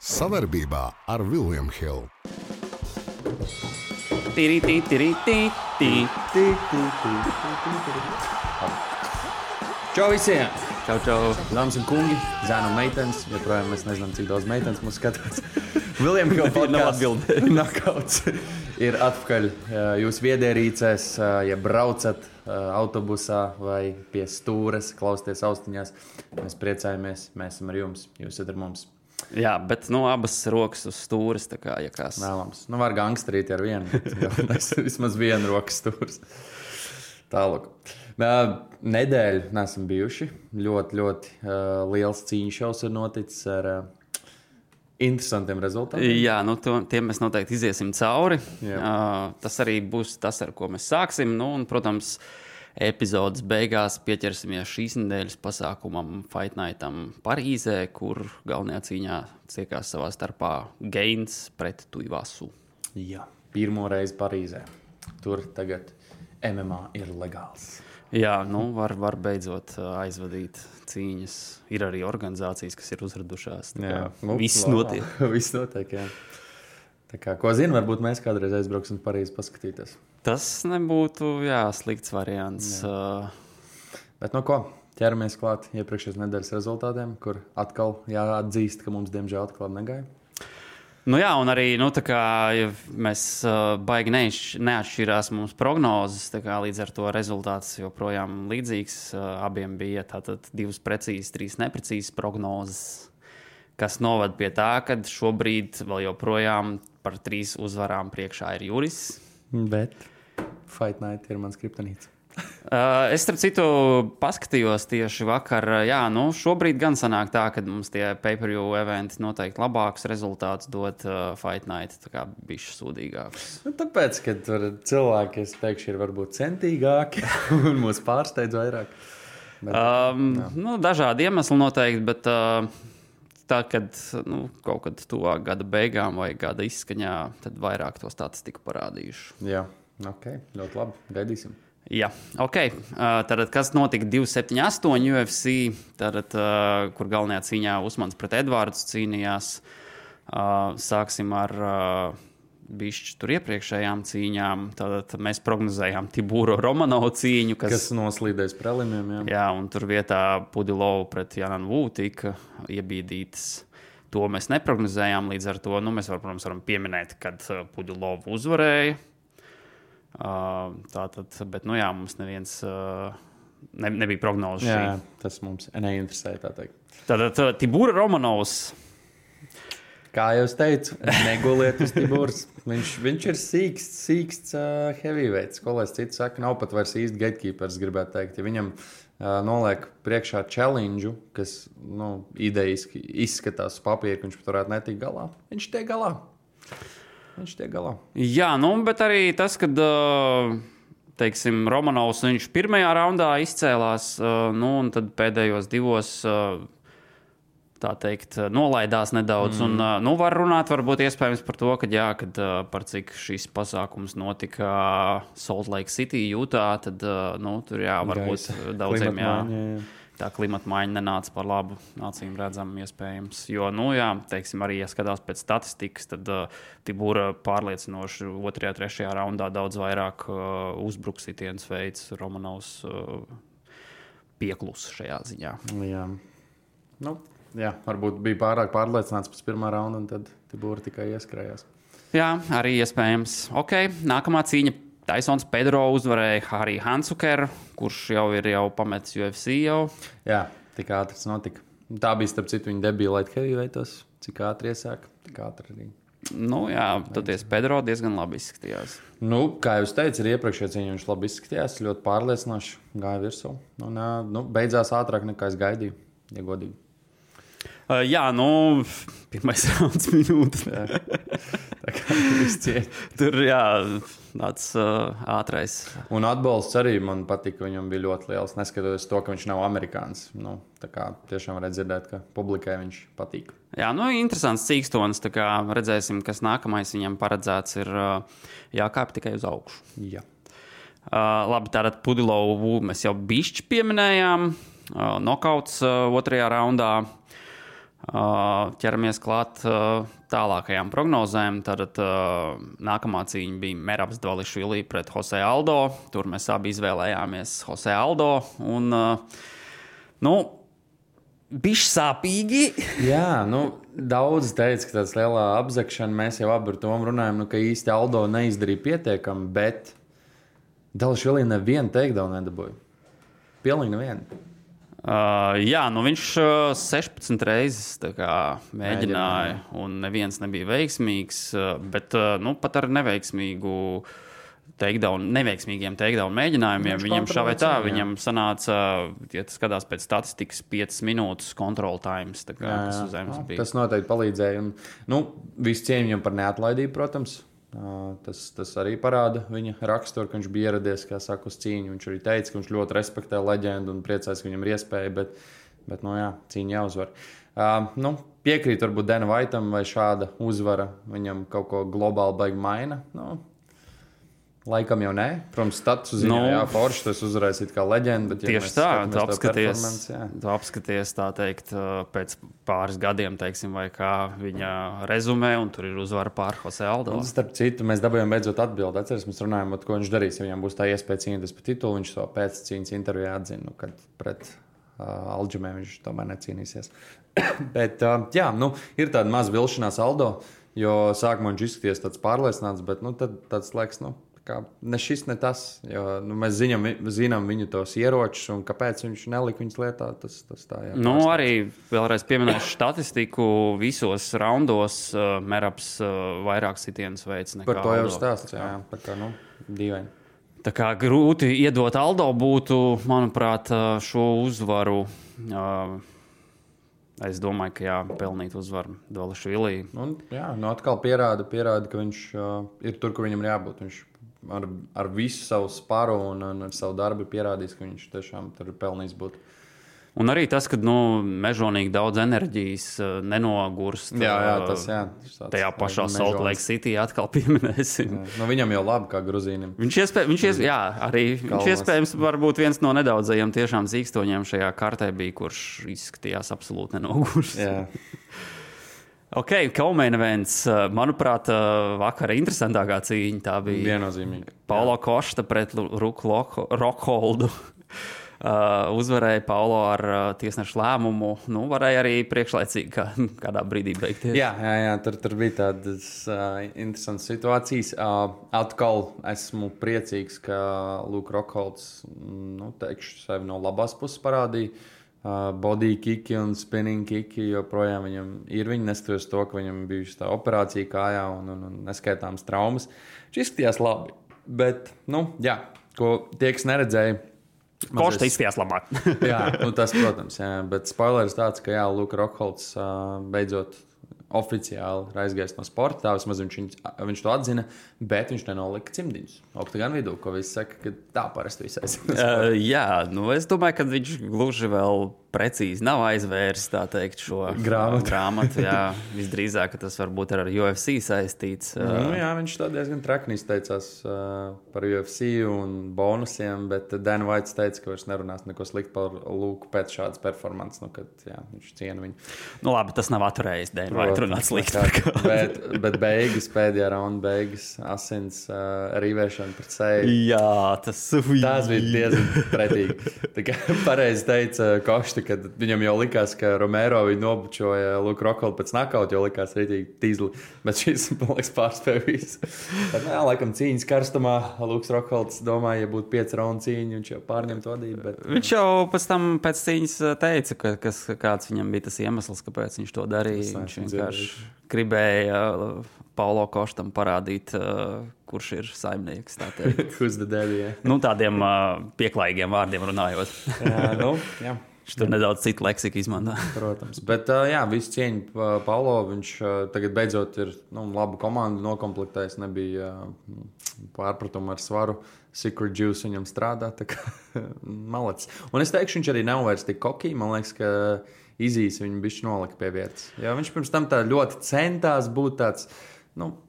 Sadarbībā ar William Hill. Čau visiem! Čau, dāmas un kungi, zēni un meitenes. Joprojām mēs nezinām, cik daudz meitenes mūs skatās. William Hill podcasts Knockouts ir atpakaļ jūsu viedierīcēs, ja braucat autobusā vai pie stūres, klausieties austiņās. Mēs priecājamies, mēs esam ar jums, jūs esat ar mums. Jā, bet abas rokas uz stūres, tā kā, ja kāds. Vēlams. Var gangsterīt ar vienu, vismaz vienu rokas stūres. Tālāk. Nedēļu neesam bijuši. Ļoti liels cīņu šaus ir noticis ar interesantiem rezultātiem. Jā, tiem mēs noteikti iziesim cauri. Tas arī būs tas, ar ko mēs sāksim. Un, protams, epizodes beigās pieķersimies šīs nedēļas pasākumam Fight Nightam Parīzē, kur galvenajā cīņā ciekās savā starpā Gains pret Tuivasu. Jā, pirmo reizi Parīzē. Tur tagad MMA ir legāls. Jā, var beidzot aizvadīt cīņas. Ir arī organizācijas, kas ir uzradušās. Viss notiek. Viss notiek, jā. Tā kā, ko zinu, varbūt mēs kādreiz aizbrauksim Parīzi paskatīties. Tas nebūtu, slikts variants. Bet ko? Ķeramies klāt iepriekšējās nedēļas rezultātiem, kur atkal jāatzīst, ka mums diemžēl atklāt negaja. Un arī, tā kā mēs baigi neatšķirās mums prognozes, tā kā līdz ar to rezultāts joprojām līdzīgs. Abiem bija tātad 2 precīzas, 3 neprecīzas prognozes, kas novad pie tā, ka šobrīd vēl joprojām par 3 uzvarām priekšā ir Juris. Bet Fight Night ir mans kriptonīts. Es, starp citu, paskatījos tieši vakar. Šobrīd gan sanāk tā, ka mums tie pay-per-view eventi noteikti labākus rezultātus dod Fight Night, tā kā bišķi sūdīgāks. Tāpēc, ka tur cilvēki, es teikšu, ir varbūt centīgāki un mūs pārsteidz vairāk. Bet, dažādi iemesli noteikti, bet tā, kad kaut kad tuvāk gada beigām vai gada izskaņā, tad vairāk to statistiku parādījuši. Jā, ok, ļoti labi, gaidīsim. Jā, ok. Tātad, kas notika 278 UFC, kur galvenajā cīņā Usmans pret Edvārds cīnījās. Sāksim ar bišķi tur iepriekšējām cīņām. Tātad mēs prognozējām Tibūro Romanovu cīņu, kas noslīdēs prelimiem. Jā, un tur vietā Pudilovu pret Janan Wu tika iebīdītas. To mēs neprognozējām, līdz ar to mēs protams, varam pieminēt, kad Pudilovu uzvarēja. Bet, mums neviens nebija prognoze. Jā, tas mums neinteresē, tā teikt. Tātad Tibūra Romanovs. Kā jau es teicu, neguliet uz Tibūras. Viņš ir sīksts heavyweights. Ko lai es citu saka, nav pat vairs īsti gatekeepers, gribētu teikt. Ja viņam noliek priekšā challenge, kas idejiski izskatās uz papīra, ka viņš pat varētu netikt galā, viņš tiek galā. Jā, bet arī tas, kad, teiksim, Romanovs viņš pirmajā raundā izcēlās, un tad pēdējos 2, tā teikt, nolaidās nedaudz. Un, var runāt varbūt iespējams par to, kad par cik šis pasākums notika Salt Lake City, Utah, tad, tur varbūt daudziem, tā klimata maiņa nenāca par labu, acīm redzam, iespējams. Jo, teiksim, arī, ja skatās pēc statistikas, tad Tibūra pārliecinoši 2., 3. raundā daudz vairāk uzbruksitiens veids. Romanovs pieklus šajā ziņā. Jā, varbūt bija pārāk pārliecināts pēc 1. raunda, un tad Tibūra tikai ieskrējās. Jā, arī iespējams. Ok, nākamā cīņa. Taisons Pedro uzvarēja Harry Hansukeru, kurš jau ir pametis UFC jau. Jā, tik ātri tas notika. Tā bija, starp citu, viņa debija light heavyweightos. Cik ātri iesāk, tik ātri arī. Toties Pedro diezgan labi izskatījās. Kā jūs teicat, ir iepriekšējā cīņā viņš labi izskatījās, ļoti pārliecinoši gāja virsū. Beidzās ātrāk nekā es gaidīju, ja godīgi. Pirmais rauns minūte. Tā kā viss ciet. Tur, tāds ātrais. Un atbalsts arī man patika, viņam bija ļoti liels, neskatoties to, ka viņš nav amerikānis. Tā kā tiešām varētu dzirdēt, ka publikai viņš patīk. Jā, interesants cīkstons, tā kā redzēsim, kas nākamais viņam paredzēts ir jākāp tikai uz augšu. Jā. Labi, tātad Pudilovu mēs jau bišķi pieminējām. Nokauts 2. raundā. Ķeramies klāt tālākajām prognozēm. Tad nākamā cīņa bija Merabs Dvališvili pret Jose Aldo. Tur mēs abi izvēlējāmies Jose Aldo. Un, bišķi sāpīgi. Jā, daudz teica, ka tāds lielā apzakšana, mēs jau abi ar Tomu runājam, ka īsti Aldo neizdarīja pietiekami, bet Dvališvili nevienu takedown nedabūja. Pilnīgi nevienu. Viņš 16 reizes mēģināja, un neviens nebija veiksmīgs, bet pat ar neveiksmīgiem takedown mēģinājumiem viņam šā vai tā, viņam sanāca, ja tas skatās pēc statistikas, 5 minūtes control times, kas uz zemes bija. Tas noteikti palīdzēja, un visu cieņu viņam par neatlaidību, protams. Tas arī parāda viņa raksturu, ka viņš bija ieradies, kā saka, uz cīņu. Viņš arī teica, ka viņš ļoti respektē leģendu un priecājas, ka viņam ir iespēja, bet cīņa jāuzvar. Piekrīt varbūt Dana Whiteam, vai šāda uzvara viņam kaut ko globāli baigi maina. Laikam jau nē. Protams, status ziņā, forši tas uzvarēs it kā leģenda. Tieši tā, tu apskaties tā teikt pēc pāris gadiem, teiksim, vai kā viņa rezumē, un tur ir uzvara pār Jose Aldo. Un, starp citu, mēs dabūjām beidzot atbildi. Atceries, mēs runājām, ko viņš darīs, ja viņam būs tā iespēja cīnīties par titulu. Viņš to pēc cīņas intervijā atzina, kad pret Aljamē viņš tomēr necīnīsies. Bet, ir tāda maza vilšanās Aldo, jo sākumā viņš izskaties tāds pārliecināts, bet tad tāds laiks, ne šis, ne tas. Jo, mēs zinām viņu tos ieročus, un kāpēc viņš nelika viņus lietā. Tas tā, jā, arī vēlreiz pieminēšu statistiku. Visos raundos Merabs vairāk sitienus veids nekā par to jau Aldo. Stāsts, jā. Par kā, dīvaini. Tā kā grūti iedot Aldo būtu, manuprāt, šo uzvaru. Es domāju, ka pelnīt uzvaru Dvališvili. Atkal pierāda, ka viņš ir tur, kur viņam ir jābūt. Viņš ar visu savu spāru un ar savu darbu pierādījis, ka viņš tiešām tur ir pelnījis būt. Un arī tas, ka mežonīgi daudz enerģijas nenogurst. Tas tajā pašā Salt Lake City atkal pieminēsim. Viņam jau labi kā Gruzīnim. Viņš iespējams varbūt viens no nedaudzajiem tiešām zīkstoņiem šajā kartē bija, kurš izskatījās absolūti nenogurst. Ok, Kaumēna events. Manuprāt, vakara interesantākā cīņa tā bija. Viennozīmīgi. Paulo Košta pret Ruku Rockholdu. Uzvarēja Paulo ar tiesnešu lēmumu. Varēja arī priekšlaicīgi kādā brīdī beigties. Jā, tur bija tādas interesantas situācijas. Atkal esmu priecīgs, ka Luke Rockholds, teikšu, sevi no labās puses parādīja. Body kiki un spinning kiki joprojām viņam ir. Viņi neskatoties to, ka viņam bijusi tā operācija kājā un neskaitāmas traumas. Viņš izskatījās labi. Bet, ko tie, kas neredzēja, Košta izskatījās labāk. Tas, protams, bet spoileris tāds, ka Luka Rockholds beidzot oficiāli ir aizgājis no sporta. Tā vismaz viņš to atzina, bet viņš nenolika cimdiņus oktagonu vidū, ko visi saka, ka tā parasti viss aizsaka. Es domāju, ka viņš gluži vēl precīzi nav aizvērs, tā teikt, šo grāmatu. Visdrīzāk, ka tas varbūt ar UFC saistīts. Viņš tā diezgan trakni izteicās par UFC un bonusiem, bet Dan White teica, ka vairs nerunās neko sliktu par Luku pēc šādas performances, kad viņš ciena viņu. Labi, tas nav atturējis Dan White runāt slikti. bet pēdējā raunda beigas, asins rīvēšana pret seju. Tas bija diezgan pretīgi. Tā kā pareizi teica Košta, kad viņam jau likās, ka Romero viņu nobučoja Luku Rockholdu pēc nakauta, jau likās rītīgi tīzli, bet šis, man liekas, pārspēja visu. Bet, laikam cīņas karstumā Luks Rockholds domāja, ja būtu 5 raundu cīņa, viņš jau pārņemt vadību. Bet... Viņš jau pēc cīņas teica, kāds viņam bija tas iemesls, kāpēc viņš to darīja. Viņš vienkārši gribēja Paulo Koštam parādīt, kurš ir saimnieks, tā teikt. Who's the daddy, tādiem pieklājīgiem vārdiem runājot. Jā. Viņš tur nedaudz citu leksiku izmanto. Protams. Bet, visu cieņu Paulo. Viņš tagad beidzot ir labu komandu nokomplektējis. Nebija pārpratumu ar svaru. Secret Juice viņam strādā. Tā kā malacis. Un es teikšu, viņš arī nav vairs tik kokī. Man liekas, ka izīs viņu bišķi nolika pie vietas. Jo viņš pirms tam tā ļoti centās būt tāds,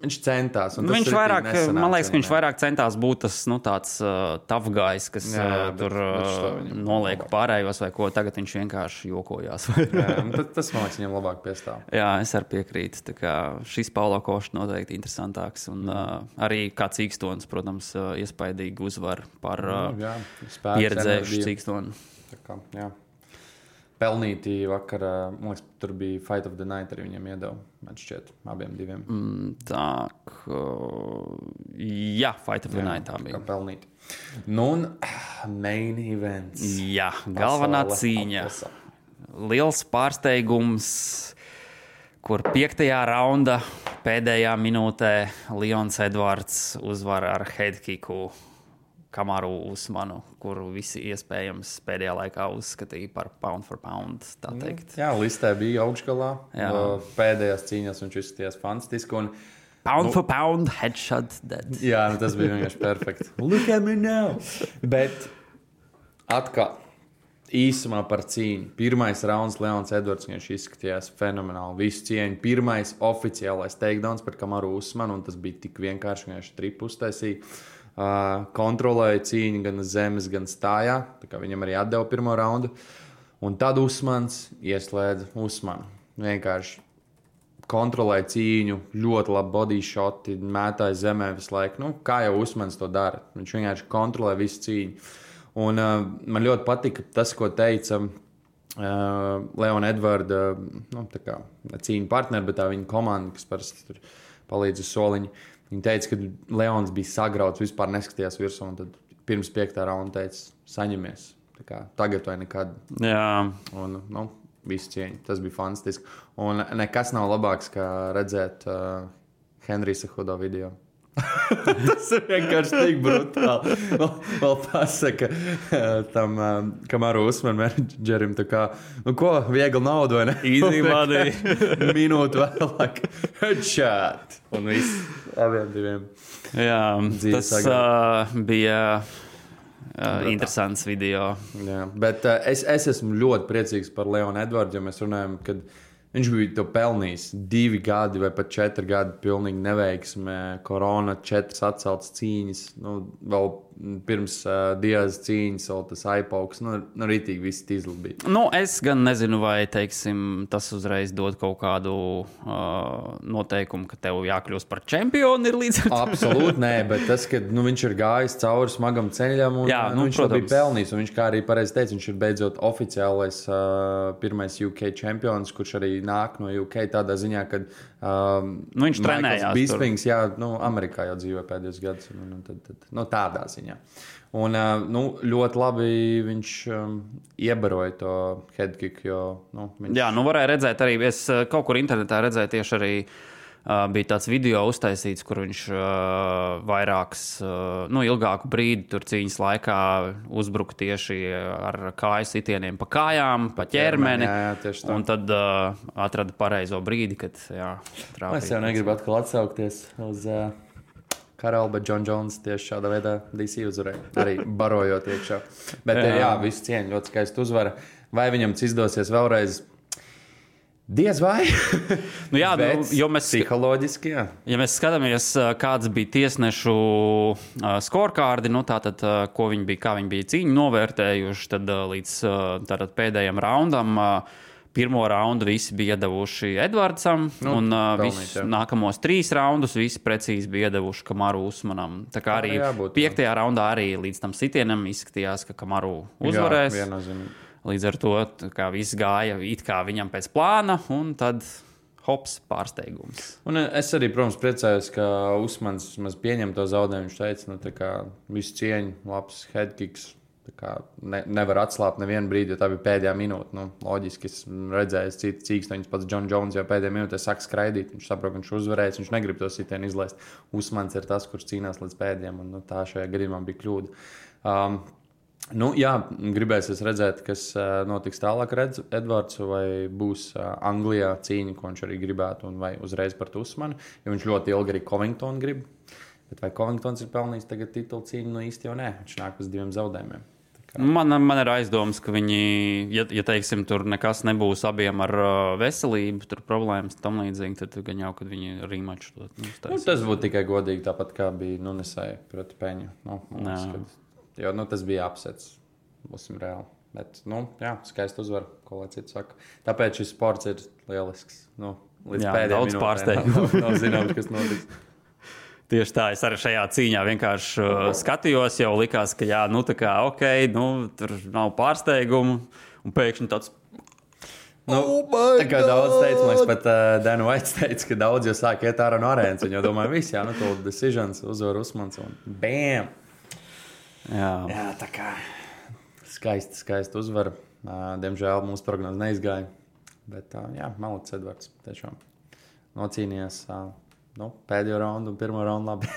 viņš centās. Viņš vairāk, man liekas, ka viņš vairāk centās būt tas tāds tough guys, kas tur noliek pārējos vai ko. Tagad viņš vienkārši jokojās. Tas, man liekas, viņam labāk piestāv. Jā, es arī piekrītu. Tā kā šis Paulo Košs noteikti interesantāks. Un arī kā Cīkstons, protams, iespaidīgi uzvar par pieredzējušu Cīkstonu. Jā. Pelnīti vakar, man liekas, tur bija Fight of the Night, arī viņiem iedeva, man šķiet, abiem diviem. Jā, Fight of the Night tā bija. Kā pelnīti. Un main events. Jā, galvenā cīņa. Liels pārsteigums, kur 5. raunda pēdējā minūtē Leons Edvards uzvar ar headkicku Kamaru Usmanu, kuru visi iespējams pēdējā laikā uzskatīja par pound for pound, tā teikt. Jā, listē bija augšgalā. Pēdējās cīņās viņš izskatījās fantastiski. Un, pound for pound, headshot dead. Jā, tas bija vienkārši perfekti. Look at me now! Bet atkal īsumā par cīņu. Pirmais rauns Leons Edvards, viņš izskatījās fenomenāli. Visu cieņu. Pirmais oficiālais takedowns par Kamaru Usmanu, un tas bija tik vienkārši, viņš tripu uztaisīja. Kontrolēja cīņu gan zemes, gan stājā. Tā kā viņam arī atdeva pirmo raundu. Un tad Usmans ieslēdza Usmanu. Vienkārši kontrolēja cīņu, ļoti labi body shoti, mētāja zemē visu laiku. Kā jau Usmans to dara. Viņš vienkārši kontrolē visu cīņu. Un man ļoti patika tas, ko teica Leona Edvarda cīņu partneri, bet tā viņa komanda, kas parasti tur palīdz uz soliņu. Viņa teica, ka Leons bija sagrauts, vispār neskatījās virsū, un tad pirms 5. raunda teica, saņemies. Tagad vai nekad. Jā. Un, visu cieņu. Tas bija fantastiski. Un nekas nav labāks, kā redzēt Henrija Cejudo video. Tas ir vienkārši tik brutāli. Vēl pasaka tam Kamaru Usmanu menedžerim, ko, viegli naudu, vai ne? Easy money. Minūtu vēlāk. Headshot. Un viss abiem diviem. Jā, tas bija interesants video. Jā, bet es esmu ļoti priecīgs par Leonu Edvardu, jo mēs runājam, kad viņš bija to pelnījis 2 gadi vai pat 4 gadi pilnīgi neveiksmē, korona, 4 atceltas cīņas, vēl pirms Diaz cīņas, vēl tas aipauks, rītīgi viss tīzli bija. Es gan nezinu, vai, teiksim, tas uzreiz dod kaut kādu noteikumu, ka tev jākļūst par čempionu ir līdz ar to. Absolūti nē, bet tas, ka viņš ir gājis cauri smagam ceļam un viņš to bija pelnījis, un viņš, kā arī pareizi teica, viņš ir beidzot oficiālais pirmais UK čempions, kurš arī nāk no UK tādā ziņā, kad viņš trenējās Bispings, jā, Amerikā jau dzīvoja pēdējos gadus, tad tādā ziņā. Un ļoti labi viņš iebaroja to headkick, jo viņš... Jā, varēja redzēt arī, es kaut kur internetā redzēju tieši arī bija tāds video uztaisīts, kur viņš vairāks, ilgāku brīdi tur cīņas laikā uzbruka tieši ar kāju sitieniem pa kājām, pa ķermeni. Jā, un tad atrada pareizo brīdi, kad trāpīja. Es jau negribu atkal atsaukties uz Karalu, bet John Jones tieši šādā veidā DC uzvarēja, arī barojot iekšā. Bet visu cieņu, ļoti skaisti uzvara. Vai viņam izdosies vēlreiz? Diez vai? Jo mēs psiholoģiski, jā. Ja mēs skatāmies, kāds bija tiesnešu scorekārdi, tātad, kā viņi bija cīņu novērtējuši, tad līdz pēdējiem raundam pirmo raundu visi bija iedevuši Edvardsam, un nākamos 3 raundus visi precīzi bija iedevuši Kamaru Usmanam. Tā kā arī 5. raundā arī līdz tam sitienam izskatījās, ka Kamaru uzvarēs. Līdz ar to viss gāja it kā viņam pēc plāna, un tad hops, pārsteigums. Un es arī, protams, priecājos, ka Usmans pieņem to zaudējumu. Viņš teica, visu cieņu, labs headkicks. Nevar atslāpt nevienu brīdi, jo tā bija pēdējā minūte. Loģiski, es redzēju, Cīkstoņus pats John Jones jau pēdējā minūtē sāk skraidīt. Viņš saprot, ka viņš uzvarēs, viņš negrib to sitienu izlaist. Usmans ir tas, kurš cīnās līdz pēdējiem, un tā šajā gadījumā bija kļūda. Gribēsies redzēt, kas notiks tālāk ar Edvardsu, vai būs Anglijā cīņa, ko viņš arī gribētu, un vai uzreiz par Usmanu, jo viņš ļoti ilgi arī Covingtonu grib. Bet vai Covingtons ir pelnījis tagad titulu cīņu? Īsti jau nē, viņš nāk uz 2 zaudējumiem. Man ir aizdomas, ka viņi, ja teiksim, tur nekas nebūs abiem ar veselību, tur problēmas tam līdzīgi, tad gan jau, kad viņi rematch to uztaisīs. Tas būtu tikai godīgi, tāpat kā bija Nunesai proti Peņu. Jo tas bija apsets, būsim reāli. Bet, skaisti uzvar, ko lai cits saka. Tāpēc šis sports ir lielisks. Līdz pēdējiem daudz pārsteigumu. Nav zināms, kas notiks. Tieši tā, es arī šajā cīņā vienkārši skatījos, jau likās, ka tur nav pārsteigumu, un pēkšņi tāds. Tā kā daudz teica, man pat Dana Vaits teica, ka daudz jau sāk iet ārā no arēnas, un jau domāju, viss, to decisions uzvar Usmans, un bam! Jā, tā kā skaisti uzvar. Diemžēl mūsu prognoze neizgāja, bet Maliks Edvards tiešām nocīnījās. Pēdējo raundu un pirmo raundu labi.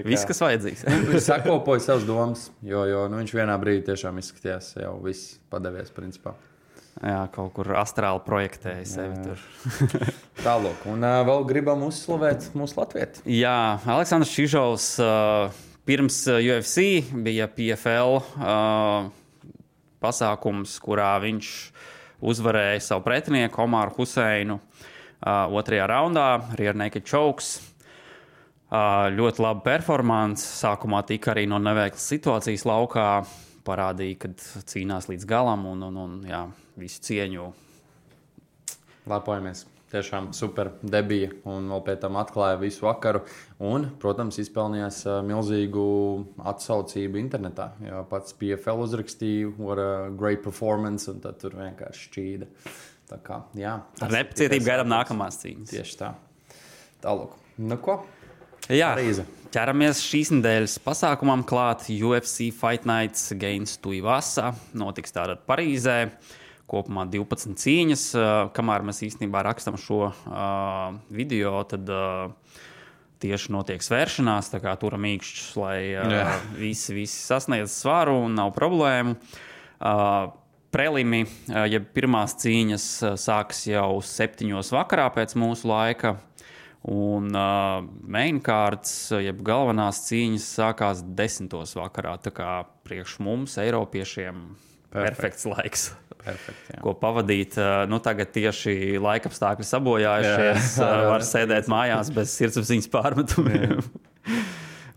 Viss, kas vajadzīgs. Viņš sakopoja savas domas, jo viņš vienā brīdī tiešām izskatījās jau viss padevies principā. Jā, kaut kur astrāli projektēja sevi tur. Tālāk. Un vēl gribam uzslavēt mūsu latvieti. Jā, Aleksandrs Čižovs pirms UFC bija PFL pasākums, kurā viņš uzvarēja savu pretinieku Omaru Huseinu. Otrajā raundā Rear Naked Chokes. Ļoti laba performance. Sākumā tika arī no neveiklas situācijas laukā. Parādīja, ka cīnās līdz galam un visu cieņu. Lepojamies. Tiešām super debija un vēl pēc tam atklāja visu vakaru. Un, protams, izpelnījās milzīgu atsaucību internetā. Jo pats PFL uzrakstīja, what a great performance, un tad tur vienkārši šķīda. Tā kā, ar nepacietību gaidām nākamās cīņas. Tieši tā. Tālāk. Ko? Jā, Parīze. ķeramies šīs nedēļas pasākumam klāt. UFC Fight Nights Gains Tuivasa notiks tātad Parīzē. Kopumā 12 cīņas. Kamēr mēs īstenībā rakstam šo video, tad tieši notiek svēršanās. Tā kā turam īkšķus, lai visi sasniedz svaru un nav problēmu. Prelimi, pirmās cīņas sāks jau 7 vakarā pēc mūsu laika, un mainkārds, galvenās cīņas sākās 10 vakarā. Tā kā priekš mums, Eiropiešiem, perfekts laiks, ko pavadīt. Tagad tieši laikapstākļi sabojājušies, var sēdēt mājās bez sirdsapziņas pārmetumiem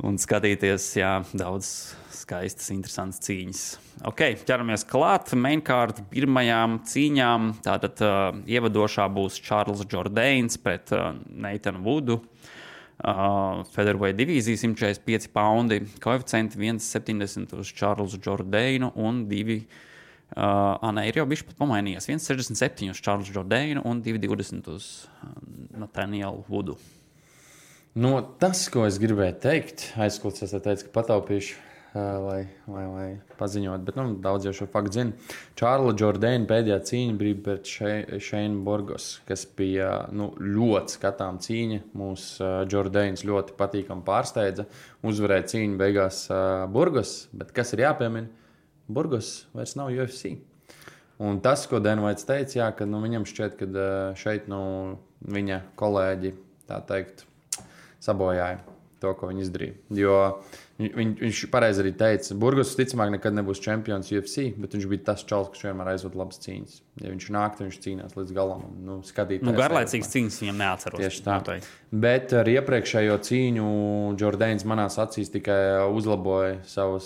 un skatīties daudz skaistas, interesantas cīņas. Ķeramies klāt mainkārt pirmajām cīņām. Tātad ievadošā būs Čārls Džordains pret Neitanu Vudu. Featherweight divīzija 145 paundi. Koeficienti 1,70 uz Čārlsu Džordainu un 2. Ir jau bišķi pat pamainījies. 1,67 uz Čārlsu Džordainu un 2,20 uz Nathanielu Vudu. Tas, ko es gribēju teikt, aizkults, es teicu, ka pataupīšu. Lai paziņot, bet daudz jau šo faktu zina. Čārla Džordaina pēdējā cīņa bija pret Šeinu Burgos, kas bija ļoti skatām cīņa. Mūsu Džordains ļoti patīkami pārsteidza. Uzvarēja cīņu beigās Burgos, bet kas ir jāpiemina? Burgos vairs nav UFC. Un tas, ko Denvaits teica, ka viņam šķiet, ka šeit viņa kolēģi, tā teikt, sabojāja to, ko viņi izdarīja. Jo viņš pareizi arī teica, Burgos ticamāk nekad nebūs čempions UFC, bet viņš bija tas čals, kurš vienmēr aizvada labas cīņas. Ja viņš nāk, tad viņš cīnās līdz galam. Garlaicīgas cīņas viņam neatceros. Tieši tā. Bet ar iepriekšējo cīņu Džordains manās acīs tikai uzlaboja savu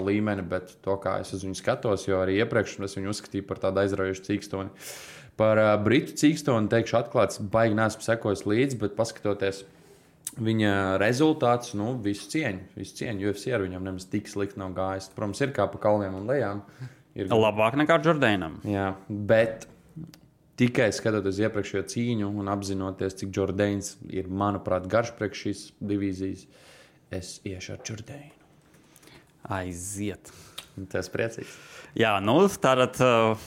līmeni, bet to, kā es uz viņu skatos, jo arī iepriekš es viņu uzskatīju par tādu aizraujošu cīkstoni. Par britu cīkstoni teikšu atklāts, baigi neesmu sekojis līdzi, bet paskatoties viņa rezultātus, visu cieņu. UFC ar viņam nemaz tik slikti nav gājis. Protams, ir kā pa kalniem un lejām. Labāk nekā Džordainam. Jā, bet tikai skatoties iepriekšējo cīņu un apzinoties, cik Džordains ir, manuprāt, garš priekš šīs divīzijas, es iešu ar Džordainu. Aiziet. Tas priecīgs. Jā, tātad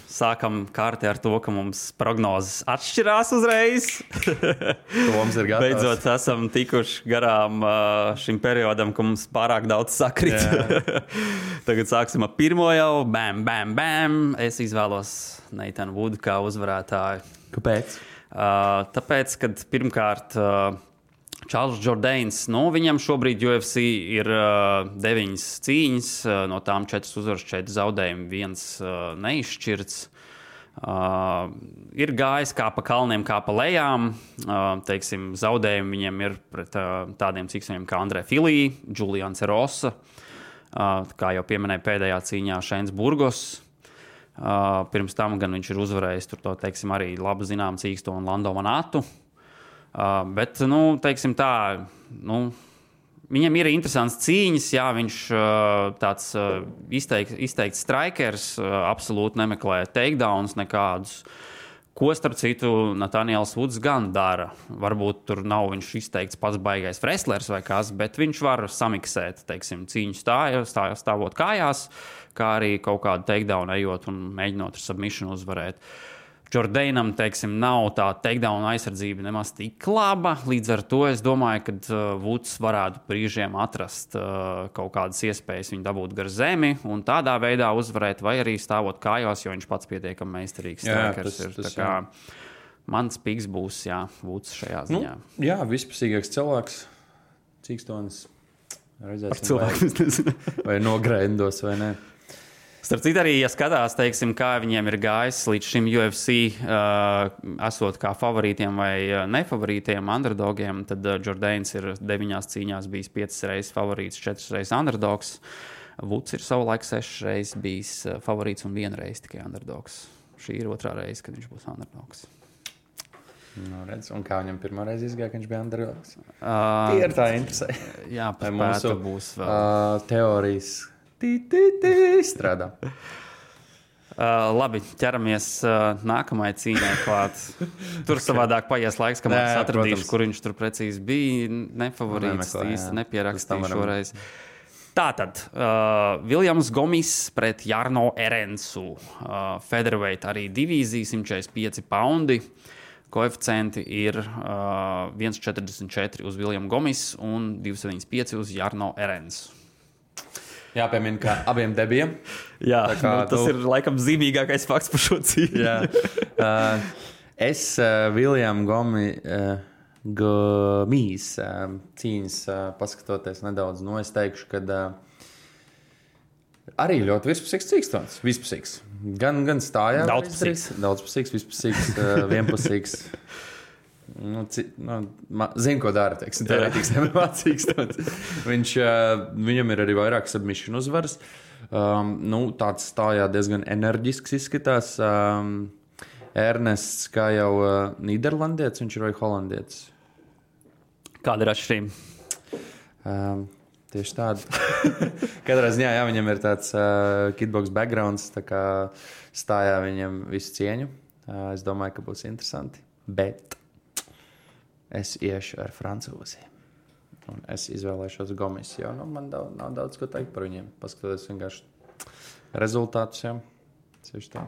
sākam kārti ar to, ka mums prognozes atšķirās uzreiz. Toms ir gatavs. Beidzot esam tikuši garām šim periodam, ka mums pārāk daudz sakrit. Tagad sāksim ar pirmo jau. Bam, bam, bam. Es izvēlos Neitanu Vudu kā uzvarētāju. Kāpēc? Tāpēc, kad pirmkārt Čārls Jordains, viņam šobrīd UFC ir 9 cīņas, no tām 4 uzvaras, 4 zaudējumi, 1 neizšķirts. Ir gājis kā pa kalniem, kā pa lejām. Teiksim, zaudējumi viņam ir pret tādiem cīkstiem kā Andrē Filī, Julians Rosa, kā jau pieminēja pēdējā cīņā Šeins Burgos. Pirms tam gan viņš ir uzvarējis tur to, teiksim, arī labi zinām cīksto un Lando Manatu. Bet, teiksim tā, viņam ir interesants cīņas, jā, viņš tāds izteikts strikers, absolūti nemeklē takedowns nekādus, ko starp citu Nathaniels Woods gan dara. Varbūt tur nav viņš izteikts pats baigais wrestlers vai kas, bet viņš var samiksēt, teiksim, cīņu stāvot kājās, kā arī kaut kādu takedown ejot un mēģinot ar submission uzvarēt. Jordainam, teiksim, nav tā takedown aizsardzība nemaz tik laba. Līdz ar to es domāju, ka Woods varētu brīžiem atrast kaut kādas iespējas viņu dabūt gar zemi un tādā veidā uzvarēt, vai arī stāvot kājās, jo viņš pats pietiekami meistarīgs strikers ir. Tā kā mans piks būs, Woods šajā ziņā. Jā, vispusīgāks cilvēks, cīkstonis. Par cilvēku es nezinu. Vai nogrendos, vai ne. Starp citu arī, ja skatās, teiksim, kā viņiem ir gājis līdz šim UFC, esot kā favorītiem vai nefavorītiem, underdogiem, tad Jordains ir 9 cīņās bijis 5 reizes favorīts, 4 reizes underdogs. Woods ir savulaik 6 reizes bijis favorīts un 1 reize tikai underdogs. Šī ir 2. reize, kad viņš būs underdogs. Redz, un kā viņam pirmā reize izgāja, ka viņš bija underdogs? Tie ir tā interesē. Jā, pēc būs vēl. Teorijas. Strādā. Labi, ķeramies nākamajai cīņai klāt. Tur savādāk paies laiks, kamēr es atradīšu, kur viņš tur precīzi bija. Nefavorīts, īsti nepierakstīju šoreiz. Tātad, Viljams Gomis pret Jarno Erensu. Featherweight arī divīzija, 145 poundi. Koeficienti ir 1,44 uz Viljamu Gomis un 2,75 uz Jarno Erensu. Jāpiemina, ka abiem debijiem. Jā, tas ir laikam zīmīgākais fakts par šo cīņu. Es Viljamu Gomis cīņas paskatoties nedaudz, es teikšu, ka arī ļoti vispusīgs cīkstons. Vispusīgs. Gan stājā. Daudzpusīgs, vispusīgs, vienpusīgs. Zinu, ko dara, teiksim, teorētiski nemācīgs. Viņam ir arī vairāk submission uzvaras. Tāds stājā diezgan enerģisks izskatās. Ernests, kā jau Nīderlandietis, viņš ir vai holandietis? Kāda ir atšķirība? Tieši tāda. Katrā ziņā, viņam ir tāds kickbox backgrounds, tā kā stājā viņam visu cieņu. Es domāju, ka būs interesanti, bet es iešu ar francūzi. Un es izvēlēšos Gomis, jo man nav daudz ko teikt par viņiem. Paskatoties vienkārši rezultātus. Cieši tā.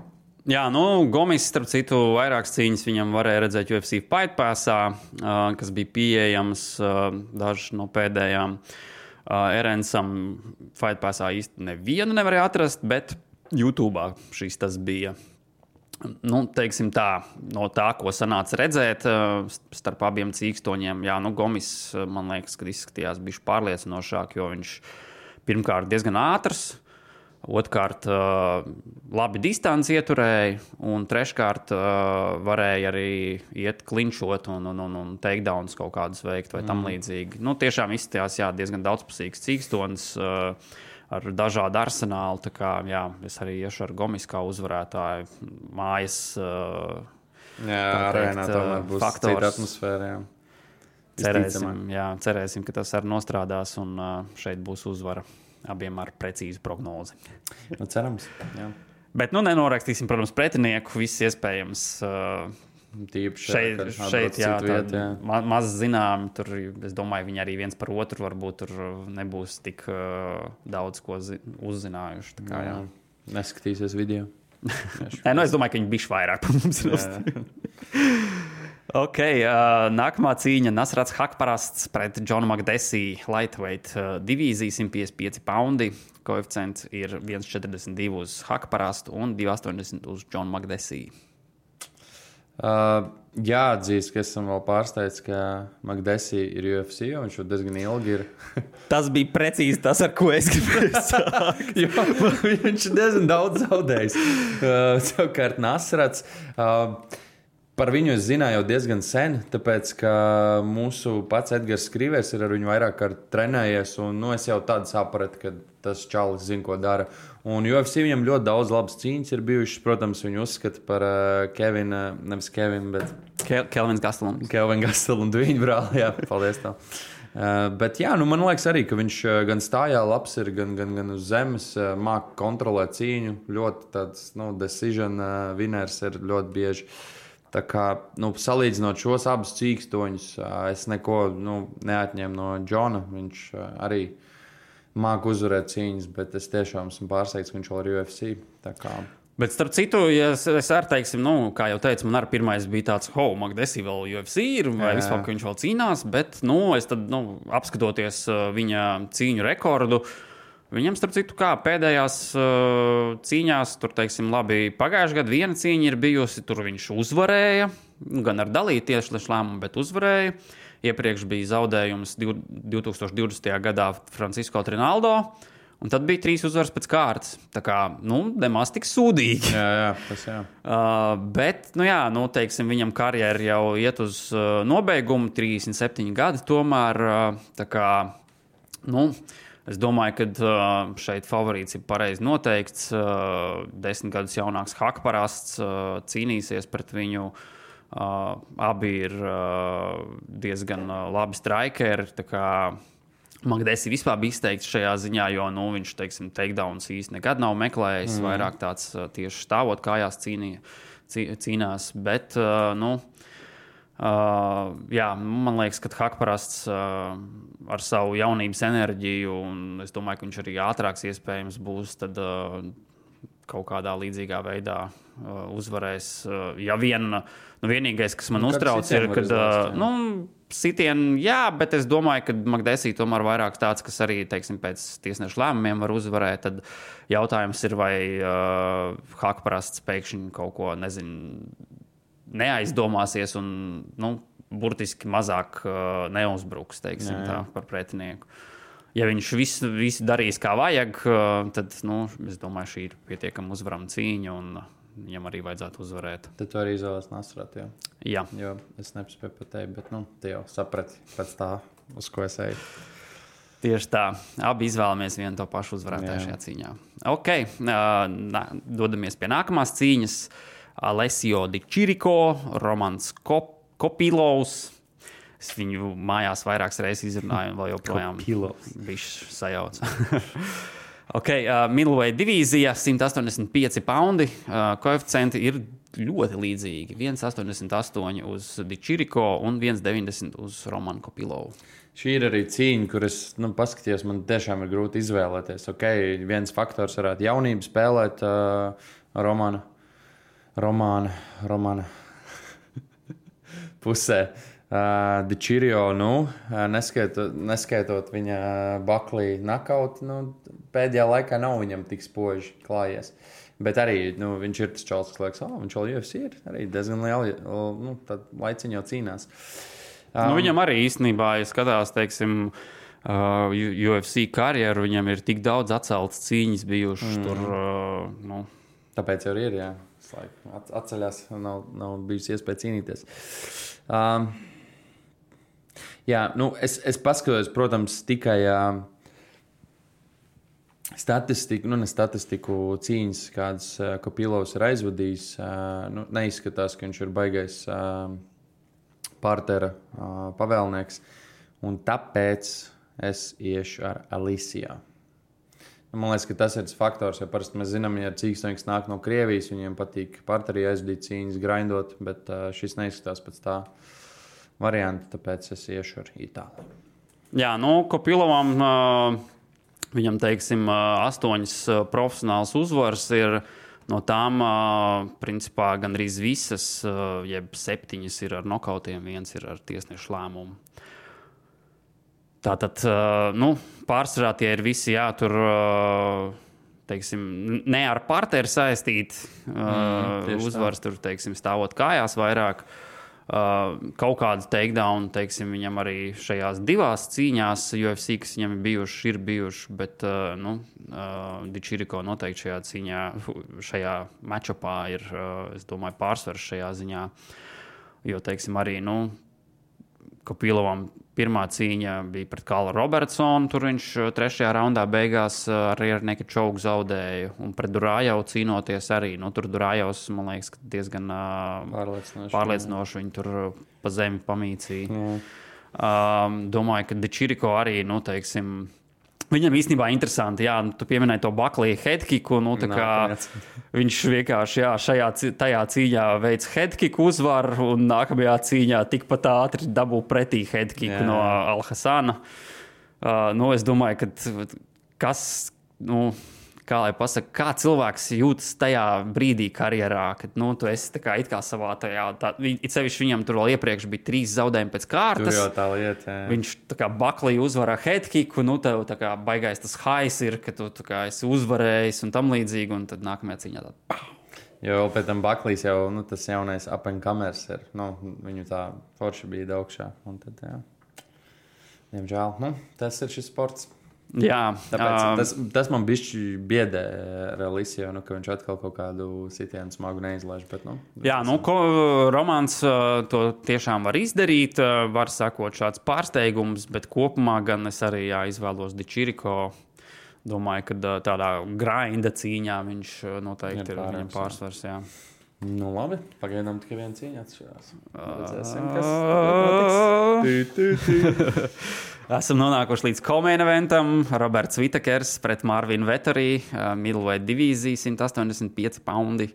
Jā, Gomis, starp citu, vairākas cīņas viņam varēja redzēt UFC Fight Passā, kas bija pieejams dažas no pēdējām. Erensam Fight Passā īsti nevienu nevarēja atrast, bet YouTube'ā tas bija. Teiksim tā, no tā, ko sanāca redzēt starp abiem cīkstoņiem, Gomis, man liekas, ka izskatījās bišķi pārliecinošāk, jo viņš pirmkārt diezgan ātrs, otrkārt labi distanci ieturēja, un treškārt varēja arī iet klinčot un takedowns kaut kādus veikt vai tam līdzīgi. Tiešām izskatījās, diezgan daudzpusīgs cīkstonis, ar dažādu arsenālu. Tā kā, es arī iešu ar Gomis kā uzvarētāju. Mājas arēnā tomēr būs cita atmosfēra. Cerēsim, ka tas arī nostrādās un šeit būs uzvara abiem ar precīzu prognozi. Cerams, jā. Bet nenorakstīsim, protams, pretinieku, viss iespējams. Šeit maz zinām, tur, es domāju, viņi arī viens par otru varbūt tur nebūs tik daudz ko uzzinājuši. Tā kā, Neskatīsies video. Es domāju, ka viņi bišķi vairāk par mums ir. Ok, nākamā cīņa Nasrats Hakparasts pret Džonu Makdesī, lightweight divīzija, 155 poundi. Koeficients ir 1,42 uz Hakparastu un 2,80 uz Džonu Makdesī. Jāatzīst, ka esam vēl pārsteigts, ka Makdesi ir UFC, jo viņš jau diezgan ilgi ir. Tas bija precīzi tas, ar ko es gribēju sākt. Viņš ir diezgan daudz zaudējis. Savukārt Nasrats. Par viņu es zināju jau diezgan sen, tāpēc, ka mūsu pats Edgars Skrivers ir ar viņu vairāk kārt trenējies, un es jau tādu sapratu, ka tas čalis zina, ko dara. Un UFC viņam ļoti daudz labas cīņas ir bijušas, protams, viņu uzskata par nevis Kevinu, bet Kelvins Gastelum. Kelvin Gastelum, viņa brāli, jā, paldies tev. Bet jā, man liekas arī, ka viņš gan stājā labs ir, gan uz zemes, māk kontrolēt cīņu, ļoti tāds, decision winners ir ļoti bieži. Tā kā, salīdzinot šos abus cīkstoņus, es neko neatņēmu no Džona. Viņš arī māk uzvarēt cīņas, bet es tiešām esmu pārsteigts, ka viņš vēl ir UFC. Tā kā... Bet starp citu, ja es arī teiksim, kā jau teicu, man arī pirmais bija tāds, Makdesi vēl UFC ir, vai vispār, ka viņš vēl cīnās, bet, es tad, apskatoties viņa cīņu rekordu, viņam, starp citu, kā pēdējās cīņās, tur, teiksim, labi, pagājušajā gadā viena cīņa ir bijusi, tur viņš uzvarēja, gan ar dalītu tieši lēmumu, bet uzvarēja. Iepriekš bija zaudējums 2020. gadā Francisco Trinaldo, un tad bija 3 uzvaras pēc kārtas. Tā kā, nemaz tik sūdīgi. Jā, tas jā. Bet, teiksim, viņam karjera jau iet uz nobeigumu, 37 gadi tomēr, tā kā, es domāju, ka šeit favorīts ir pareizi noteikts. 10 gadus jaunāks Hakparasts cīnīsies pret viņu. Abi ir diezgan labi strikeri. Makdesi vispār bija izteikts šajā ziņā, jo viņš, teiksim, takedowns īsti nekad nav meklējis. Vairāk tāds tieši stāvot kājās cīnās. Bet, man liekas, ka Hakparasts ar savu jaunības enerģiju, un es domāju, ka viņš arī ātrāks iespējams būs, tad kaut kādā līdzīgā veidā uzvarēs. Ja vienīgais, kas man uztrauc, ir, kad sitieni, jā, bet es domāju, ka Makdesi tomēr vairāk tāds, kas arī, teiksim, pēc tiesnešu lēmumiem var uzvarēt, tad jautājums ir, vai Hakparasts pēkšņi kaut ko, neaizdomāsies un, burtiski mazāk neuzbruks, teiksim, tā par pretinieku. Ja viņš visu darīs kā vajag, tad, es domāju, šī ir pietiekama uzvarama cīņa, un viņam arī vajadzētu uzvarēt. Tad tu arī izvēlēs Nasratu, jā? Jā. Jo es nepaspēju pateikt, bet, tu jau saprati pēc tā, uz ko es eju. Tieši tā. Abi izvēlamies vienu to pašu uzvarētāju šajā cīņā. Ok, dodamies pie nākamās cīņas. Alessio Di Chirico, Romans Kopilovs. Es viņu mājās vairākas reizes izrunāju, un vēl joprojām bišķi sajauc. Ok, middleweight divīzija, 185 paundi. Koeficienti ir ļoti līdzīgi. 1,88 uz Di Chirico un 1,90 uz Romanu Kopilovu. Šī ir arī cīņa, kur es paskatījos, man tiešām ir grūti izvēlēties. Ok, viens faktors varētu jaunību spēlēt Romana pusē. Di Chirico, neskaitot viņa Buckley knockout, pēdējā laikā nav viņam tik spoži klājies. Bet arī viņš ir tas čalis, kas liekas, viņš vēl UFC ir arī diezgan liela, tad laiciņi jau cīnās. Viņam arī īstenībā, ja skatās, teiksim, UFC karjeru, viņam ir tik daudz atceltas cīņas bijušas tur. Tāpēc jau ir, jā. Atceļās, nav bijusi iespēja cīnīties. Jā, es paskatos, protams, tikai statistiku cīņas, kādas Kopilovs ir aizvadījis. Neizskatās, ka viņš ir baigais partera pavēlnieks, un tāpēc es iešu ar Alicia. Man liekas, ka tas ir tas faktors, jo parasti mēs zinām, ja cīkstoņs nāk no Krievijas, viņiem patīk parteri aizvadīt cīņas, grindot, bet šis neizskatās pēc tā varianta, tāpēc es iešu ar Itāliju. Jā, Kopilovam viņam, teiksim, 8 profesionāls uzvaras ir. No tām, principā, gandrīz visas, jeb 7 ir ar nokautiem, 1 ir ar tiesnešu lēmumu. Tātad, pārsvarā tie ir visi, tur teiksim, ne ar partneri saistīti uzvaras, tur, teiksim, stāvot kājās vairāk. Kaut kādu takedown, teiksim, viņam arī šajās divās cīņās UFC, kas viņam ir bijuši, bet Dičiriko noteikti šajā cīņā, šajā matchupā ir, es domāju, pārsvars šajā ziņā, jo, teiksim, arī, Kopilovam pirmā cīņa bija pret Kālu Robertsonu, tur viņš 3. raundā beigās arī ar nekad čaugu zaudēja, un pret Durājau cīnoties arī, tur Durājavs, man liekas, diezgan pārliecinoši viņi tur pa zemi pamīcīja. Domāju, ka Dičiriko arī, teiksim, viņam īstenībā interesanti, tu pieminēji to Buckley headkicku, viņš vienkārši, tajā cīņā veic headkicku uzvaru, un nākamajā cīņā tikpat ātri dabū pretī headkicku no Al-Hasana. Es domāju, ka kas, kā lai pasaka, kā cilvēks jūtas tajā brīdī karjerā, kad, tu esi tā kā it kā savā it sevišķi viņam tur vēl iepriekš bija 3 zaudējumi pēc kārtas. Tur jau tā lieta, Viņš tā kā Buckley uzvarā headkicku, tev tā kā baigais tas highs ir, ka tu tā kā esi uzvarējis un tam līdzīgi, un tad nākamajā cīņā tā. Jo pēc tam Buckleys jau, tas jaunais up and comers ir, viņu tā forši bija augšā, un tad, diemžēl, tas ir šis sports. Jā, tāpēc tas man bišķi biedē Realisio, ka viņš atkal kaut kādu sitienu smagu neizlaiž. Bet, Romāns to tiešām var izdarīt, var sakot šāds pārsteigums, bet kopumā gan es arī izvēlos Dičiriko. Domāju, ka tādā grinda cīņā viņš noteikti ir viņam pārsvars. Jā. Labi, pagaidām tikai viena cīņa atšķirās. Redzēsim, kas notiks. Esam nonākuši līdz co-main eventam. Roberts Whittakers pret Marvinu Vettori, middleweight divīzija, 185 poundi.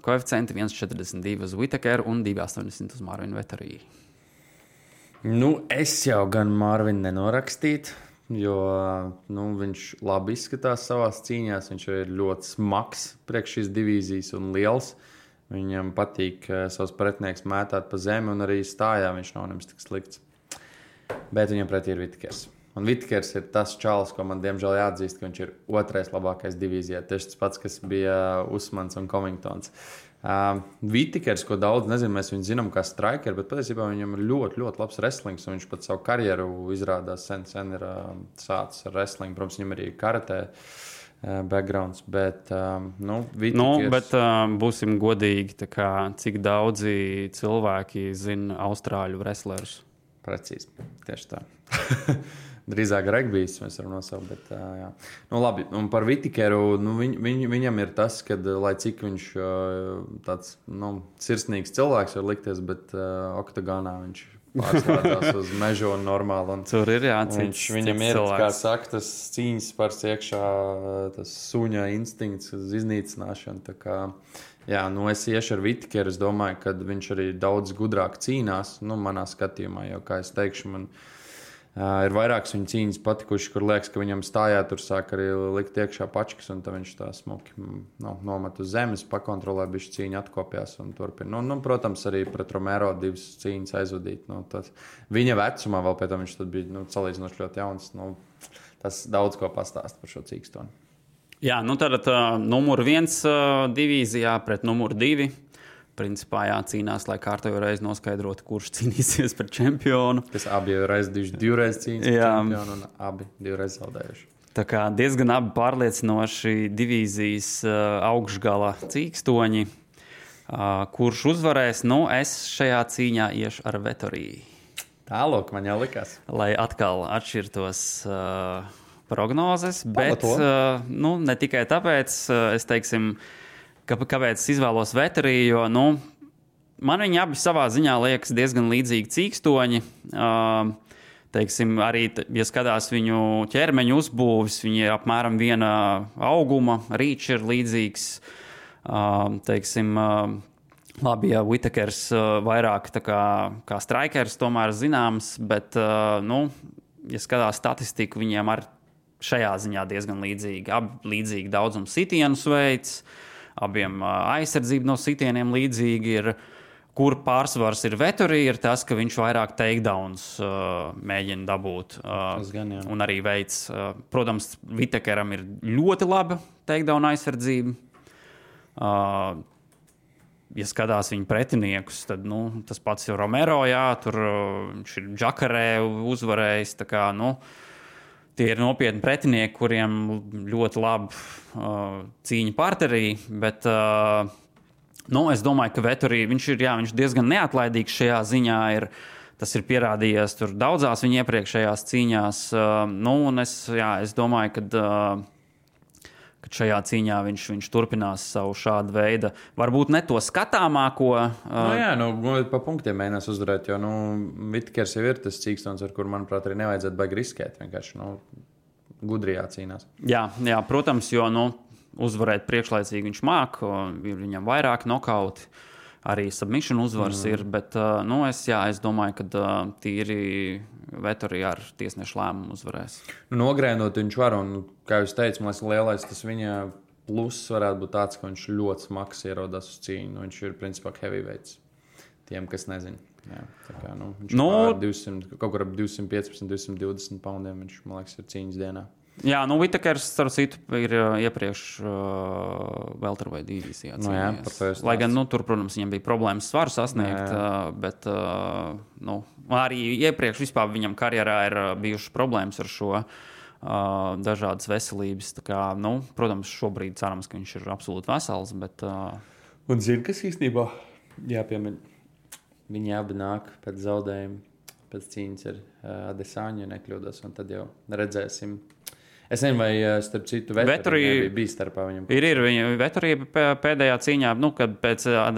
Koeficienti 1,42 uz Whittakeru un 2,80 uz Marvinu Vettori. Es jau gan Marvinu nenorakstītu, jo viņš labi izskatās savās cīņās. Viņš ir ļoti smags priekš šīs divīzijas un liels. Viņam patīk savus pretinieks mētāt pa zemi, un arī stājā viņš nav nemaz tik slikts. Bet viņam pretī ir Whittakers. Un Whittakers ir tas čalis, ko man diemžēl jāatzīst, ka viņš ir 2. labākais divīzijā. Tieši tas pats, kas bija Usmans un Covingtons. Whittakers, ko daudz nezinu, mēs viņu zinām kā striker, bet patiesībā viņam ir ļoti, ļoti labs wrestlings, un viņš pat savu karjeru izrādās sen ir sācis ar wrestling. Protams, viņam arī karatē backgrounds, bet Whittakers... bet būsim godīgi, cik daudzi cilvēki zina austrāļu wrestlerus? Precīzi, tieši tā. Drīzāk regbijs mēs varam nosaukt, bet jā. Labi, un par Whittakeru, viņam ir tas, ka, lai cik viņš tāds, sirsnīgs cilvēks var likties, bet oktagonā viņš pārslēdzās uz mežu un normāli. Un tur ir viņam ir, kā saka, tas cīņas pars iekšā, tas suņa instinkts uz iznīcināšanu, tā kā... Jā, es iešu ar Whittakeru. Es domāju, ka viņš arī daudz gudrāk cīnās. Manā skatījumā, jo, kā es teikšu, man ir vairākas viņa cīņas patikušas, kur liekas, ka viņam stājā tur sāk arī likt iekšā pačkas, un tad viņš tā smuki nomet uz zemes, pakontrolē, bišķi cīņu atkopjās un turpina. Protams, arī pret Romero 2 cīņas aizvadīt. Viņa vecumā vēl pēc tam viņš tad bija salīdzinoši ļoti jauns. Tas daudz ko pastāst par šo cīkstoni. Jā, tad numur 1 divīzijā pret numur 2. Principā cīnās, lai kārtējo reizi noskaidrotu, kurš cīnīsies par čempionu. Kas abi jau divreiz cīnās par čempionu un abi 2 reizes zaudējuši. Tā kā diezgan abi pārliecinoši divīzijas augšgala cīkstoņi. Kurš uzvarēs? Es šajā cīņā iešu ar Vettori. Tālāk man jau likās. Lai atkal atšķirtos... prognozes, bet ne tikai tāpēc, es teiksim, kāpēc es izvēlos Vettori, jo man viņi abi savā ziņā liekas diezgan līdzīgi cīkstoņi. Teiksim, arī, ja skatās viņu ķermeņa uzbūvis, viņi ir apmēram viena auguma, rīčs ir līdzīgs. Teiksim, labi, ja Whittakers vairāk tā kā strikers tomēr zināms, bet, ja skatās statistiku, viņiem ar šajā ziņā diezgan līdzīgi. Abi līdzīgi daudzums sitienu veids, abiem aizsardzība no sitieniem līdzīgi ir. kur pārsvars ir Vettori, ir tas, ka viņš vairāk takedowns mēģina dabūt. Gan, un arī veids. Protams, Vitekeram ir ļoti laba takedown aizsardzība. Ja skatās viņa pretiniekus, tad tas pats ir Romero, tur viņš ir Džakarē uzvarējis. Tā kā, tie ir nopietni pretinieki, kuriem ļoti laba cīņa parterī, bet es domāju, ka Vettori, viņš ir diezgan neatlaidīgs šajā ziņā. Tas ir pierādījies tur daudzās viņa iepriekšējās cīņās. Un es domāju, ka šajā cīņā viņš turpinās savu šādu veidu. Varbūt ne to skatāmāko. Pa punktiem mēģinās uzvarēt, jo Vitkers jau ir tas cīkstons, ar kuru, manuprāt, arī nevajadzētu baigi riskēt. Vienkārši gudri jācīnās. Jā, protams, jo uzvarēt priekšlaicīgi viņš māk, ir viņam vairāk nokauti, arī submission uzvaras ir, bet es domāju, ka tīri Vettori ar tiesnešu lēmumu uzvarēs. Nogrēnot viņš var, un, kā jūs teicu, man liekas, lielais tas viņa pluss varētu būt tāds, ka viņš ļoti smags ierodās uz cīņu. Viņš ir principā heavyweights. Tiem, kas nezina. Jā, tā kā, viņš pār 200, kaut kur ap 215, 220 poundiem viņš, man liekas, ir cīņas dienā. Jā, Vitekers, starp citu, ir iepriekš welterweight divīzijā. Lai gan, tur, protams, viņam bija problēmas svaru sasniegt, bet arī iepriekš vispār viņam karjerā ir bijušas problēmas ar šo dažādas veselības. Tā kā, protams, šobrīd cerams, ka viņš ir absolūti vesels, bet... Un zini, kas īstenībā jāpiemina? Viņi abi nāk pēc zaudējuma, pēc cīņas ar Adesāņu, ja nekļūdos, un tad jau redzēsim. Es nezinu, vai starp citu Vettori bija starpā viņam. Vettori pēdējā cīņā, kad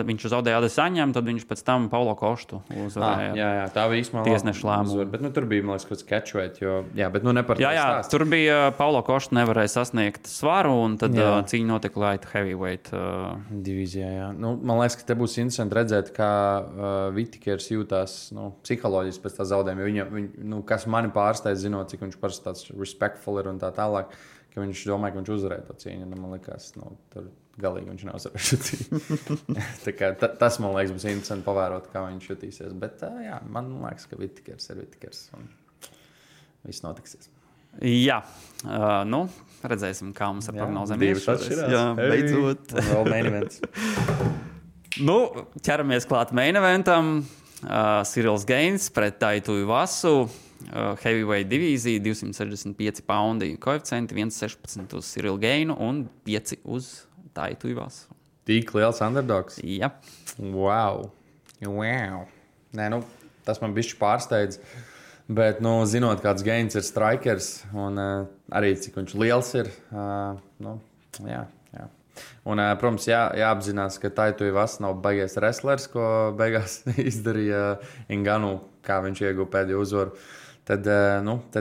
viņš zaudēja Adesāņam, tad viņš pēc tam Paulo Koštu uzvarēja. Jā, tā bija īstenībā tiesnešu lēmumu. Bet tur bija, man liekas, kaut kāds catchweight, ne par to stāstu. Tur bija Paulo Koštu nevarēja sasniegt svaru, un tad cīņa notika light heavyweight divīzijā, jā. Man liekas, ka te būs interesanti redzēt, kā Vitekers jūtās psiholoģiski pēc tā zaudējuma, jo viņa, kas mani pārsteidz, zinot, cik viņš parasti tāds respectful ir un tā tālāk, ka viņš domāja, ka viņš uzvarēja to cīņu. Man liekas, tur galīgi viņš neuzvarēja šo cīņu. Tas, man liekas, būs interesanti pavērot, kā viņš jutīsies. Bet, man liekas, ka Vitekers ir Vitekers un viss notiksies. Jā, redzēsim, kā mums ar prognozēm Jā, beidzot. Vēl main events. Ķeramies klāt main eventam. Cyrils Gains pret Taitu Ivasu. Heavyweight divīzija, 265 poundi koeficienti, 1,16 uz Cyrilu Gainu un 5 uz Taitu Ivasu. Tik liels underdogs? Jā. Wow. Nē, tas man bišķi pārsteidz. Bet, zinot, kāds Gains ir strikers un arī cik viņš liels ir, jā. Un, protams, jāapzinās, ka Taitu Ivasu nav baigies wrestlers, ko beigās izdarīja Ngannou, kā viņš ieguva pēdējo uzvaru. Tad,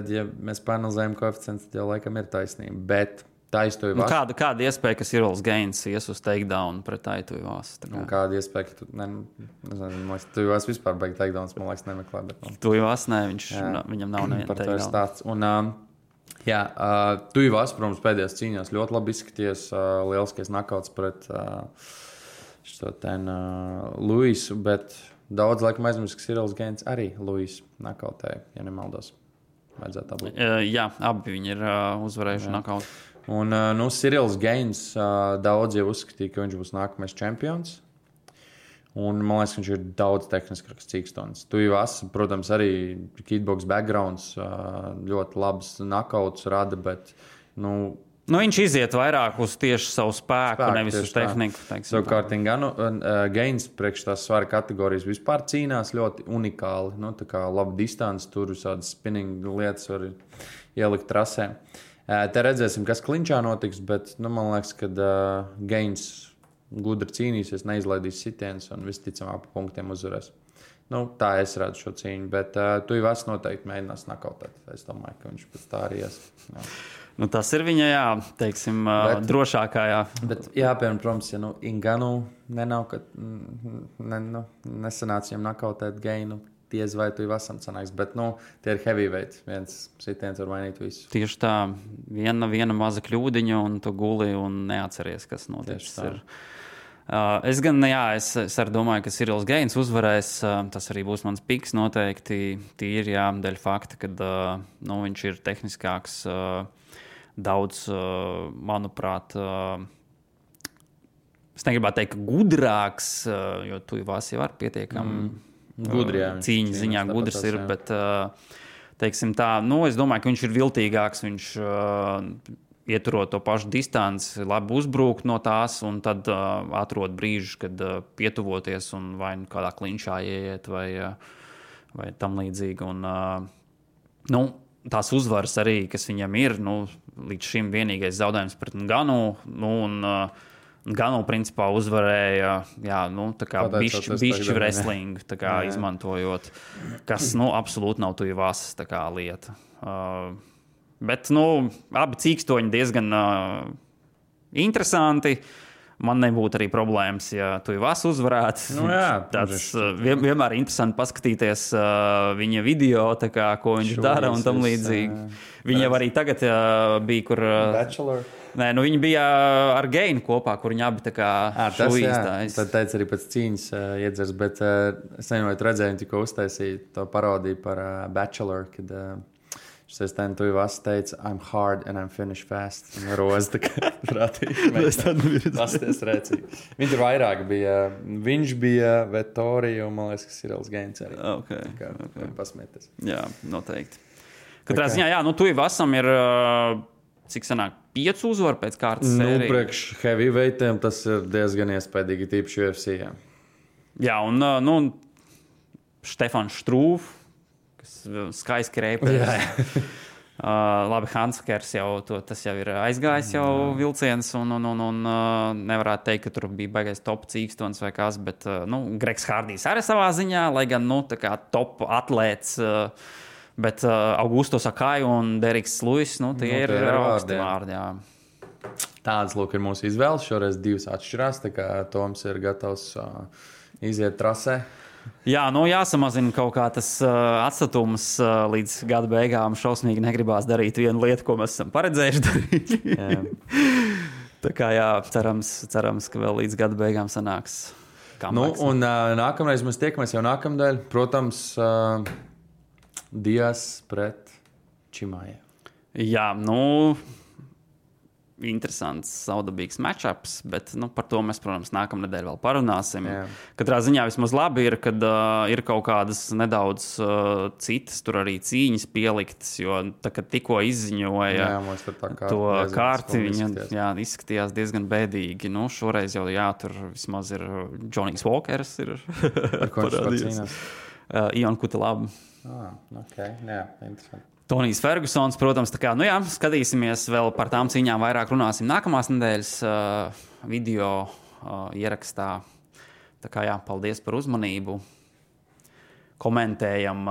ja mēs panalizējam koeficientus, tad jau laikam ir taisnība. Bet Taitu Ivasu... Kāda iespēja, ka Cyrils Gains ies uz takedown pret Taitu Ivasu? Kāda iespēja, ka Taitu Ivasu vispār beig takedowns, man liekas, nemeklē. Taitu Ivasu, viņam nav neviena takedown. Taitu Ivasu, protams, pēdējās cīņās ļoti labi izskaties. Lieliskais nakauts pret Luisu, bet... Daudz laikam aizmirst, ka Cyrils Gains arī Luis nakautēja, ja nemaldos. Vajadzētu tā būt. Jā, abi viņi ir uzvarējuši nakautu. Un Cyrils Gains daudz jau uzskatīja, ka viņš būs nākamais čempions. Un man liekas, ka viņš ir daudz tehniskāks cīkstons. Taitu Ivasu, protams, arī kickbox backgrounds, ļoti labs nakauts rada, bet, viņš iziet vairāk uz tieši savu spēku nevis uz tehniku. Savukārt, Gains priekš tās svara kategorijas vispār cīnās ļoti unikāli. Tā kā laba distance, tur visādas spinning lietas var ielikt trasē. Te redzēsim, kas klinčā notiks, bet man liekas, ka Gains gudri cīnīsies, neizlaidīs sitienus un visticamāk pa punktiem uzvarēs. Tā es redzu šo cīņu, bet Taitu Ivasu noteikti mēģinās nakautēt. Es domāju, ka viņš pēc tā arī ies. Tas ir viņa, drošākā, Bet jāpiemēr, protams, ja Ngannou nesanāca viņam nakautēt Gainu, diez vai Taitu Ivasam sanāks, bet, tie ir heavyweight, viens sitiens var mainīt visu. Tieši tā, viena maza kļūdiņa un tu guli un neatceries, kas noticis ir. Es gan, es arī domāju, ka Cyrils Gaines uzvarēs. Tas arī būs mans piks noteikti. Tīri, dēļ fakta, ka viņš ir tehniskāks, daudz, manuprāt, es negribētu teikt, ka gudrāks, jo Tuivas jau ar pietiekami cīņas ziņā gudrs ir, bet, teiksim tā, es domāju, ka viņš ir viltīgāks, viņš ieturot to pašu distanci, labi uzbrukt no tās un tad atrod brīžu, kad pietuvoties un vai kādā klinčā ieiet vai tam līdzīgi. Un, tās uzvaras arī, kas viņam ir, līdz šim vienīgais zaudējums pret Nganu, un Nganu principā uzvarēja, tā kā bišķi wrestling, tā kā izmantojot, kas, absolūti nav Tuivas tā kā lieta. Bet, abi cīkstoņi diezgan interesanti. Man nebūtu arī problēmas, ja Tuivas uzvarētu. Tāds vienmēr interesanti paskatīties viņa video, kā, ko viņš dara un tam līdzīgi. Viņa arī tagad bija, kur... Bachelor. Nē, viņi bija ar Gainu kopā, kur viņi abi tā kā šuīstājas. Tad teica arī pēc cīņas iedzers, bet es nevienot redzēju, tikko uztaisīju to parodiju par Bachelor, kad... Šis Tuivas teica, I'm hard and I'm finished fast. Un roza tā kā prātīgi. Pasties rēcīgi. Viņš ir vairāk bija. Viņš bija Vettori un, man liekas, ka Cyrils Gaines arī. Okay. Pasmieties. Jā, noteikti. Katrā ziņā, Tuivasam ir, cik sanāk, 5 uzvaru pēc kārtas sērijas. Priekš heavyweightiem tas ir diezgan iespaidīgi, tīpaši UFC. Jā, un Štefans Štrūv, skaisti reipers. Labi, Hanskers tas jau ir aizgājis jau vilciens, un nevarētu teikt, ka tur bija baigais top cīkstons vai kas, bet Gregs Hardijs arī savā ziņā, lai gan tā kā top atlēts, bet Augusto Sakai un Deriks Luis, tie ir augsti vārdi. Tāds, lūk, ir mūsu izvēles. Šoreiz 2 atšķirās, tā kā Toms ir gatavs iziet trasē. Jā, jāsamazina kaut kā tas atstatums līdz gada beigām. Šausmīgi negribās darīt vienu lietu, ko mēs esam paredzējuši darīt. Tā kā cerams, ka vēl līdz gada beigām sanāks. Un nākamreiz mēs tiekamies jau nākamdēļ. Protams, Dias pret Čimāju. Jā, interesants, saudabīgs matchups, bet par to mēs, protams, nākamnedēļ vēl parunāsim. Katrā ziņā vismaz labi ir, kad ir kaut kādas nedaudz citas tur arī cīņas pieliktas, jo kad tikko izziņoja to kārti, viņa izskatījās diezgan bēdīgi. Šoreiz jau tur vismaz ir Johnny's Walkers ir parādījies. Ion Kutelab. Interesanti. Tonijs Fergusons, protams, tā kā, skatīsimies vēl par tām cīņām, vairāk runāsim nākamās nedēļas video ierakstā. Tā kā, paldies par uzmanību. Komentējam,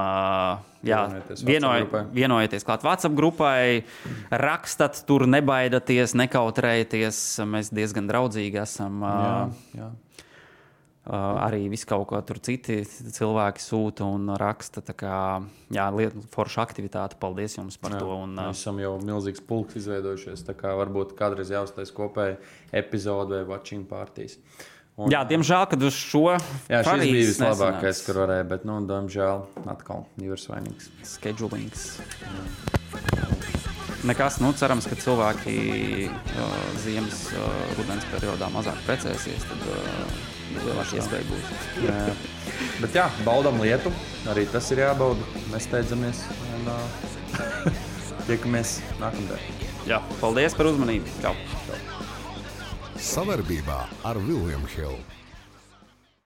vienojieties klāt WhatsApp grupai, rakstat tur, nebaidaties, nekautrējieties. Mēs diezgan draudzīgi esam. Arī visu kaut ko tur citi cilvēki sūta un raksta. Tā kā, forša aktivitāte. Paldies jums par to. Mēs esam jau milzīgs pulks izveidojušies. Tā kā varbūt kādreiz jāuztais kopēji epizode vai watching partijas. Diemžēl, kad uz šo šis bija vislabākais, kur varēja, bet, diemžēl, atkal divas vainīgas. Schedulings. Nekas, cerams, ka cilvēki ziemas rudens periodā mazāk precēsies, tad lielāka iespēja būs. Bet baudam lietu, arī tas ir jābauda. Mēs steidzamies un tiekamies nākamdien. Paldies par uzmanību. Čau. Savarbībā ar William Hill.